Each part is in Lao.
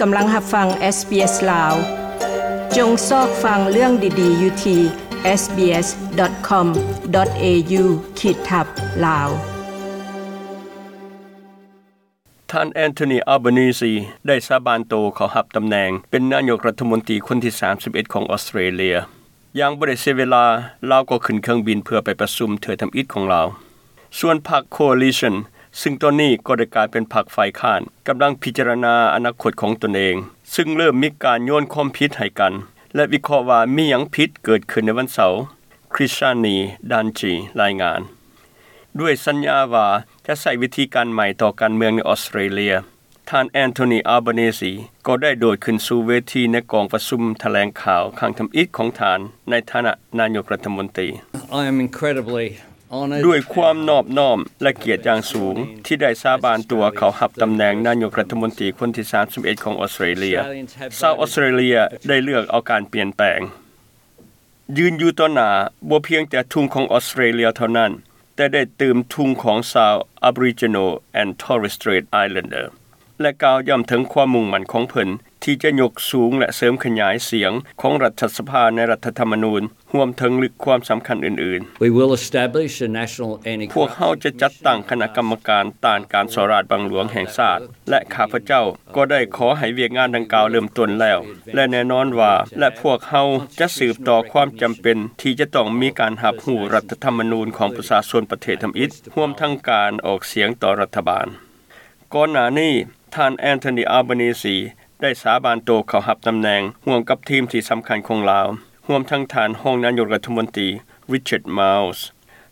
ກຳລັງຮັບຟັງ SBS ລາວ. ຈົ່ງຊອກຟັງເລື່ອງດີໆຢູ່ທີ່ SBS.com.au ຂີດທັບ ລາວ. ທ່ານ Anthony Albanese ໄດ້ສາບານໂຕເຂົ້າຮັບຕຳແໜ່ງເປັນນາຍົກລັດຖະມົນຕີຄົນທີ ສາມສິບເອັດ ຂອງອອສເຕຣເລຍ. ຢ່າງບໍ່ໄດ້ເສຍເວລາ, ລາວກໍຂຶ້ນເຄື່ອງບິນເພື່ອໄປປະຊຸມເທື່ອທຳອິດຂອງລາວ. ສ່ວນພັກ Coalition ຊຶ່ງຕອນນີ້ກໍໄດ້ກາຍເປັນພັກຝ່າຍຄ້ານ, ກຳລັງພິຈາລະນາອະນາຄົດຂອງຕົນເອງ, ຊຶ່ງເລີ່ມມີການໂຍນຄວາມຜິດໃຫ້ກັນ ແລະ ວິເຄາະວ່າມີຫຍັງຜິດເກີດຂຶ້ນໃນວັນເສົາ, Krishani Danchi ລາຍງານ. ດ້ວຍສັນຍາວ່າຈະໃຊ້ວິທີການໃໝ່ຕໍ່ການເມືອງໃນອອສເຕຣເລຍ, ທ່ານ Anthony Albanese ກໍໄດ້ໂດດຂຶ້ນສູ່ເວທີໃນກອງປະຊຸມຖະແຫຼງຂ່າວຄັ້ງທຳອິດຂອງທ່ານໃນຖານະນາຍົກລັດຖະມົນຕີ. I am incredibly honored. ດ້ວຍຄວາມນອບນ້ອມ ແລະ ກຽດຢ່າງສູງທີ່ໄດ້ສາບານຕົວເຂົ້າຮັບຕຳແໜ່ງນາຍົກລັດຖະມົນຕີຄົນທີ ສາມສິບເອັດ ຂອງອອສເຕຣເລຍ. ຊາວອອສເຕຣເລຍໄດ້ເລືອກເອົາການປ່ຽນແປງ. ຢືນຢູ່ຕໍ່ໜ້າບໍ່ພຽງແຕ່ທຸງຂອງອອສເຕຣເລຍເທົ່ານັ້ນ, ແຕ່ໄດ້ຕື່ມທຸງຂອງຊາວ Aboriginal and Torres Strait Islander ແລະ ກ່າວຢ້ຳເຖິງຄວາມມຸ່ງໝັ້ນຂອງເພິ່ນທີ່ຈະຍົກສູງ ແລະ ເສີມຂະຫຍາຍສຽງຂອງລັດຖະສະພາໃນລັດຖະທຳມະນູນ, ຮວມເຖິງລຶກຄວາມສຳຄັນອື່ນໆ. We will establish a national anti-corruption commission. ພວກເຮົາຈະຈັດຕັ້ງຄະນະກຳມະການຕ້ານການສໍ້ລາດບັງຫຼວງແຫ່ງຊາດ ແລະ ຂ້າພະເຈົ້າກໍໄດ້ຂໍໃຫ້ວຽກງານດັ່ງກ່າວເລີ່ມຕົ້ນແລ້ວ ແລະ ແນ່ນອນວ່າ ແລະ ພວກເຮົາຈະສືບຕໍ່ຄວາມຈຳເປັນທີ່ຈະຕ້ອງມີການຮັບຮູ້ລັດຖະທຳມະນູນຂອງປະຊາຊົນປະເທດທຳອິດ, ຮວມທັງການອອກສຽງຕໍ່ລັດຖະບານ. ກ່ອນໜ້ານີ້, ທ່ານ Anthony Albanese ໄດ້ສາບານໂຕເຂົ້າຮັບຕຳແໜ່ງຮ່ວມກັບທີມທີ່ສຳຄັນຂອງລາວ, ຮວມທັງທ່ານຮອງນາຍົກລັດຖະມົນຕີ Richard Marles,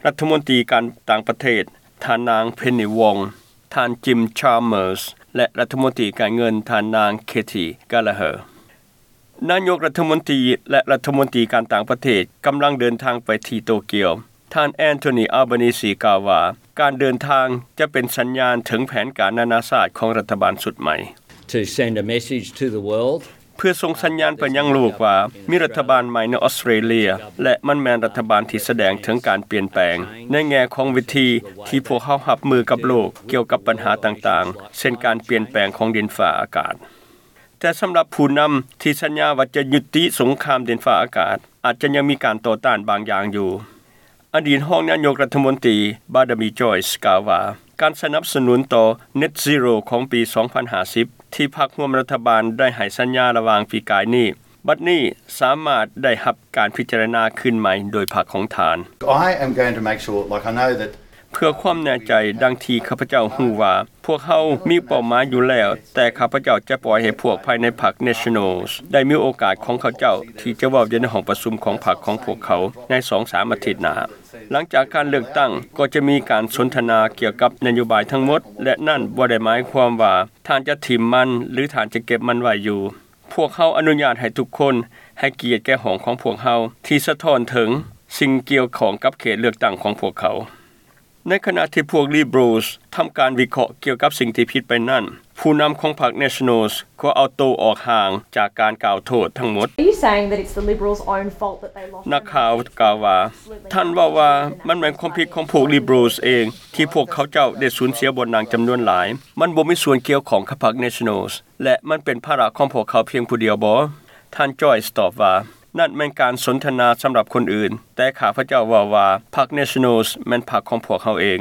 ລັດຖະມົນຕີການຕ່າງປະເທດ ທ່ານນາງ Penny Wong, ທ່ານ Jim Chalmers ແລະ ລັດຖະມົນຕີການເງິນ ທ່ານນາງ Katy Gallagher. ນາຍົກລັດຖະມົນຕີ ແລະ ລັດຖະມົນຕີການຕ່າງປະເທດກຳລັງເດີນທາງໄປທີ່ໂຕກຽວ. ທ່ານ Anthony Albanese ກ່າວວ່າ ການເດີນທາງຈະເປັນສັນຍານເຖິງແຜນການນານາຊາດຂອງລັດຖະບານຊຸດໃໝ່. To send a message to the world. ເພື່ອສົ່ງສັນຍານໄປຍັງໂລກວ່າ ມີລັດຖະບານໃໝ່ໃນອອສເຕຣເລຍ ແລະ ມັນແມ່ນລັດຖະບານທີ່ສະແດງເຖິງການປ່ຽນແປງ ໃນແງ່ຂອງວິທີທີ່ພວກເຮົາຮັບມືກັບໂລກກ່ຽວກັບບັນຫາຕ່າງໆ ເຊັ່ນການປ່ຽນແປງຂອງດິນຟ້າອາກາດ. ແຕ່ສຳລັບຜູ້ນຳທີ່ສັນຍາວ່າຈະຍຸຕິສົງຄາມດິນຟ້າອາກາດ, ອາດຈະຍັງມີການຕໍ່ຕ້ານບາງຢ່າງຢູ່. ອະດີດຮອງນາຍົກລັດຖະມົນຕີ Barnaby Joyce ກ່າວວ່າ ການສະໜັບສະໜູນຕໍ່ Net Zero ຂອງປີສອງພັນຫ້າສິບ ທີ່ພັກຮ່ວມລັດຖະບານໄດ້ໃຫ້ສັນຍາລະຫວ່າງປີກາຍນີ້, ບັດນີ້ສາມາດໄດ້ຮັບການພິຈາລະນາຄືນໃໝ່ໂດຍພັກຂອງທ່ານ. I am going to make sure, like, I know that ເພື່ອຄວາມແນ່ໃຈ, ດັ່ງທີ່ຂ້າພະເຈົ້າຮູ້ວ່າ ພວກເຮົາມີເປົ້າໝາຍຢູ່ແລ້ວ, ແຕ່ຂ້າພະເຈົ້າຈະປ່ອຍໃຫ້ພວກພາຍໃນພັກ Nationals ໄດ້ມີໂອກາດຂອງເຂົາເຈົ້າທີ່ຈະເວົ້າຢູ່ໃນຫ້ອງປະຊຸມຂອງພັກຂອງພວກເຂົາໃນສອງສາມອາທິດໜ້າ. ຫຼັງຈາກການເລືອກຕັ້ງ, ກໍຈະມີການສົນທະນາກ່ຽວກັບນະໂຍບາຍທັງໝົດ, ແລະ ນັ້ນບໍ່ໄດ້ໝາຍຄວາມວ່າທ່ານຈະຖິ້ມມັນ ຫຼື ທ່ານຈະເກັບມັນໄວ້ຢູ່. ພວກເຮົາອະນຸຍາດໃຫ້ທຸກຄົນໃຫ້ກຽດແກ່ຫ້ອງຂອງພວກເຮົາ ທີ່ສະທ້ອນເຖິງສິ່ງກ່ຽວຂ້ອງກັບເຂດເລືອກຕັ້ງຂອງພວກເຂົາ. ໃນຂະນະທີ່ພວກ Liberals ທຳການວິເຄາະກ່ຽວກັບສິ່ງທີ່ຜິດໄປນັ້ນ, ຜູ້ນຳຂອງພັກ Nationals ກໍເອົາໂຕອອກຫ່າງຈາກການກ່າວໂທດທັງໝົດ. Are you saying that it's the Liberals' own fault that they lost? ນັກຂ່າວກ່າວວ່າ, ທ່ານເວົ້າວ່າມັນແມ່ນຄວາມຜິດຂອງພວກ Liberals ເອງ ທີ່ພວກເຂົາເຈົ້າໄດ້ສູນເສຍບ່ອນນັ່ງຈຳນວນຫຼາຍ. ມັນບໍ່ມີສ່ວນກ່ຽວຂ້ອງກັບພັກ Nationals ແລະ ມັນເປັນພາລະຂອງພວກເຂົາພຽງຜູ້ດຽວບໍ? ທ່ານ Joyce ຕອບວ່າ, ນັ້ນແມ່ນການສົນທະນາສຳລັບຄົນອື່ນ, ແຕ່ຂ້າພະເຈົ້າເວົ້າວ່າ ພັກ Nationals ແມ່ນພັກຂອງພວກເຮົາເອງ.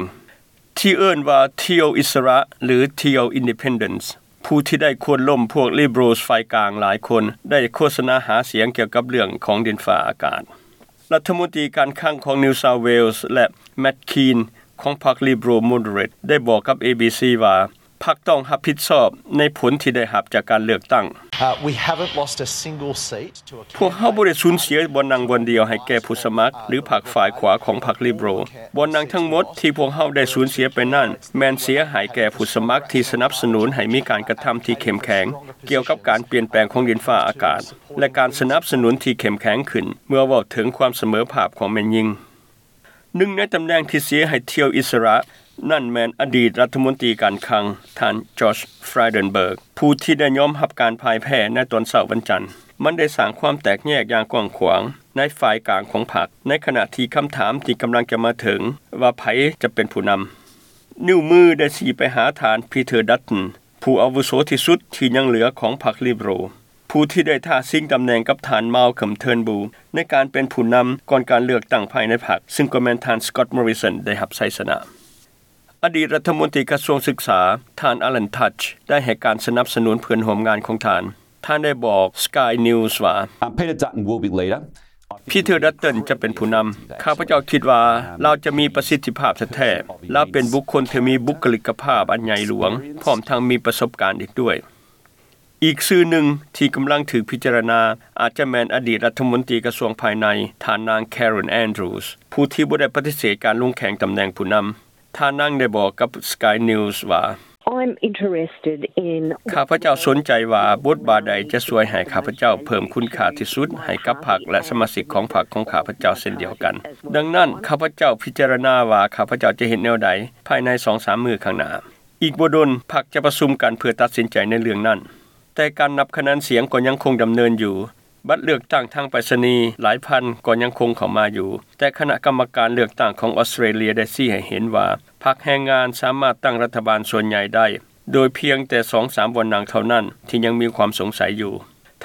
ທີ່ເອີ້ນວ່າ Teal ອິດສະຫຼະ ຫຼື Teal Independence, ຜູ້ທີ່ໄດ້ໂຄ່ນລົ້ມພວກ Liberals ຝ່າຍກາງຫຼາຍຄົນ ໄດ້ໂຄສະນາຫາສຽງກ່ຽວກັບເລື່ອງຂອງດິນຟ້າອາກາດ. ລັດຖະມົນຕີການຄັງຂອງ New South Wales ແລະ Matt Kean ຂອງພັກ Liberal Moderate ໄດ້ບອກກັບ ເອບີຊີ ວ່າ ພັກຕ້ອງຮັບຜິດຊອບໃນຜົນທີ່ໄດ້ຮັບຈາກການເລືອກຕັ້ງ. Uh, we haven't lost a single seat to a ພວກເຮົາບໍ່ໄດ້ສູນເສຍບ່ອນນັ່ງບ່ອນດຽວໃຫ້ແກ່ຜູ້ສະໝັກ ຫຼື ພັກຝ່າຍຂວາຂອງພັກ Liberal. ບ່ອນນັ່ງທັງໝົດທີ່ພວກເຮົາໄດ້ສູນເສຍໄປນັ້ນ ແມ່ນເສຍໃຫ້ແກ່ຜູ້ສະໝັກທີ່ສະໜັບສະໜູນໃຫ້ມີການກະທຳທີ່ເຂັ້ມແຂງກ່ຽວກັບການປ່ຽນແປງຂອງດິນຟ້າອາກາດ ແລະ ການສະໜັບສະໜູນທີ່ເຂັ້ມແຂງຂຶ້ນເມື່ອເວົ້າເຖິງຄວາມສະເໝີພາບຂອງແມ່ຍິງ. ໜຶ່ງໃນຕຳແໜ່ງທີ່ເສຍໃຫ້ Teal ອິດສະຫຼະ ນັ້ນແມ່ນອະດີດລັດຖະມົນຕີການຄັງ ທ່ານ Josh Frydenberg ຜູ້ທີ່ໄດ້ຍອມຮັບການພ່າຍແພ້ໃນຕອນເຊົ້າວັນຈັນ. ມັນໄດ້ສ້າງຄວາມແຕກແຍກຢ່າງກວ້າງຂວາງໃນຝ່າຍກາງຂອງພັກ, ໃນຂະນະທີ່ຄຳຖາມທີ່ກຳລັງຈະມາເຖິງວ່າໃຜຈະເປັນຜູ້ນຳ. ນິ້ວມືໄດ້ຊີ້ໄປຫາທ່ານ Peter Dutton ຜູ້ອາວຸໂສທີ່ສຸດທີ່ຍັງເຫຼືອຂອງພັກ Liberal ຜູ້ທີ່ໄດ້ທ້າຊິງຕຳແໜ່ງກັບທ່ານ Malcolm Turnbull ໃນການເປັນຜູ້ນຳກ່ອນການເລືອກຕັ້ງພາຍໃນພັກ ຊຶ່ງກໍແມ່ນທ່ານ Scott Morrison ໄດ້ຮັບໄຊຊະນະ. ອະດີດລັດຖະມົນຕີກະຊວງສຶກສາ ທ່ານ Alan Tudge ໄດ້ໃຫ້ການສະໜັບສະໜູນເພື່ອນຮ່ວມງານຂອງທ່ານ. ທ່ານໄດ້ບອກ Sky News ວ່າ Um, Peter Dutton will be leader. ພີເທີ ດັດຕັນ ຈະເປັນຜູ້ນຳ. ຂ້າພະເຈົ້າຄິດວ່າລາວຈະມີປະສິດທິພາບແທ້ໆ. ລາວເປັນບຸກຄົນທີ່ມີບຸກຄະລິກກະພາບອັນໃຫຍ່ຫຼວງ, ພ້ອມທັງມີປະສົບການອີກດ້ວຍ. ອີກຊື່ໜຶ່ງທີ່ກຳລັງຖືກພິຈາລະນາ ອາດຈະແມ່ນອະດີດລັດຖະມົນຕີກະຊວງພາຍໃນ ທ່ານນາງ Karen Andrews ຜູ້ທີ່ບໍ່ໄດ້ປະຕິເສດການລົງແຂ່ງຕຳແໜ່ງຜູ້ນຳ. ທ່ານນາງໄດ້ບອກກັບ Sky News ວ່າ I'm interested in ຂ້າພະເຈົ້າສົນໃຈວ່າບົດບາດໃດຈະຊ່ວຍໃຫ້ຂ້າພະເຈົ້າເພີ່ມຄຸນຄ່າທີ່ສຸດໃຫ້ກັບພັກ ແລະ ສະມາຊິກຂອງພັກຂອງຂ້າພະເຈົ້າເຊັ່ນດຽວກັນ. ດັ່ງນັ້ນ ຂ້າພະເຈົ້າພິຈາລະນາວ່າຂ້າພະເຈົ້າຈະເຮັດແນວໃດພາຍໃນສອງສາມມື້ຂ້າງໜ້າ. ອີກບໍ່ດົນ ພັກຈະປະຊຸມກັນເພື່ອຕັດສິນໃຈໃນເລື່ອງນັ້ນ. ແຕ່ການນັບຄະແນນສຽງກໍຍັງຄົງດຳເນີນຢູ່. ບັດເລືອກຕັ້ງທາງໄປສະນີຫຼາຍພັນກໍຍັງຄົງເຂົ້າມາຢູ່, ແຕ່ຄະນະກຳມະການເລືອກຕັ້ງຂອງອອສເຕຣເລຍໄດ້ຊີ້ໃຫ້ເຫັນວ່າ ພັກແຮງງານສາມາດຕັ້ງລັດຖະບານສ່ວນໃຫຍ່ໄດ້ ໂດຍພຽງແຕ່ສອງສາມບ່ອນນັ່ງເທົ່ານັ້ນທີ່ຍັງມີຄວາມສົງໄສຢູ່.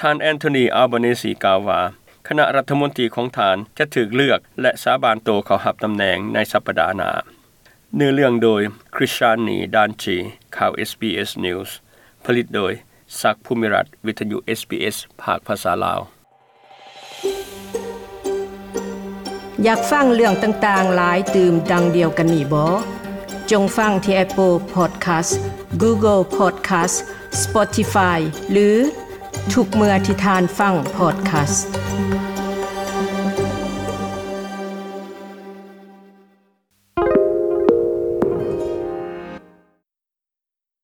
ທ່ານ Anthony Albanese ກ່າວວ່າ ຄະນະລັດຖະມົນຕີຂອງທ່ານຈະຖືກເລືອກ ແລະ ສາບານໂຕເຂົ້າຮັບຕຳແໜ່ງໃນສັບປະດາໜ້າ. ເນື້ອເລື່ອງໂດຍ Krishan Danchi ຂ່າວ SBS News ຜະລິດໂດຍ ສັກ ພູມິລັດ ວິທະຍຸ SBS ພາກພາສາລາວ. ຢາກຟັງເລື່ອງຕ່າງໆຫຼາຍຕື່ມດັ່ງດຽວກັນນີ້ບໍ? ຈົ່ງຟັງທີ່ Apple Podcast, Google Podcast, Spotify ຫຼື ທຸກເມື່ອທີ່ທ່ານຟັງ podcast.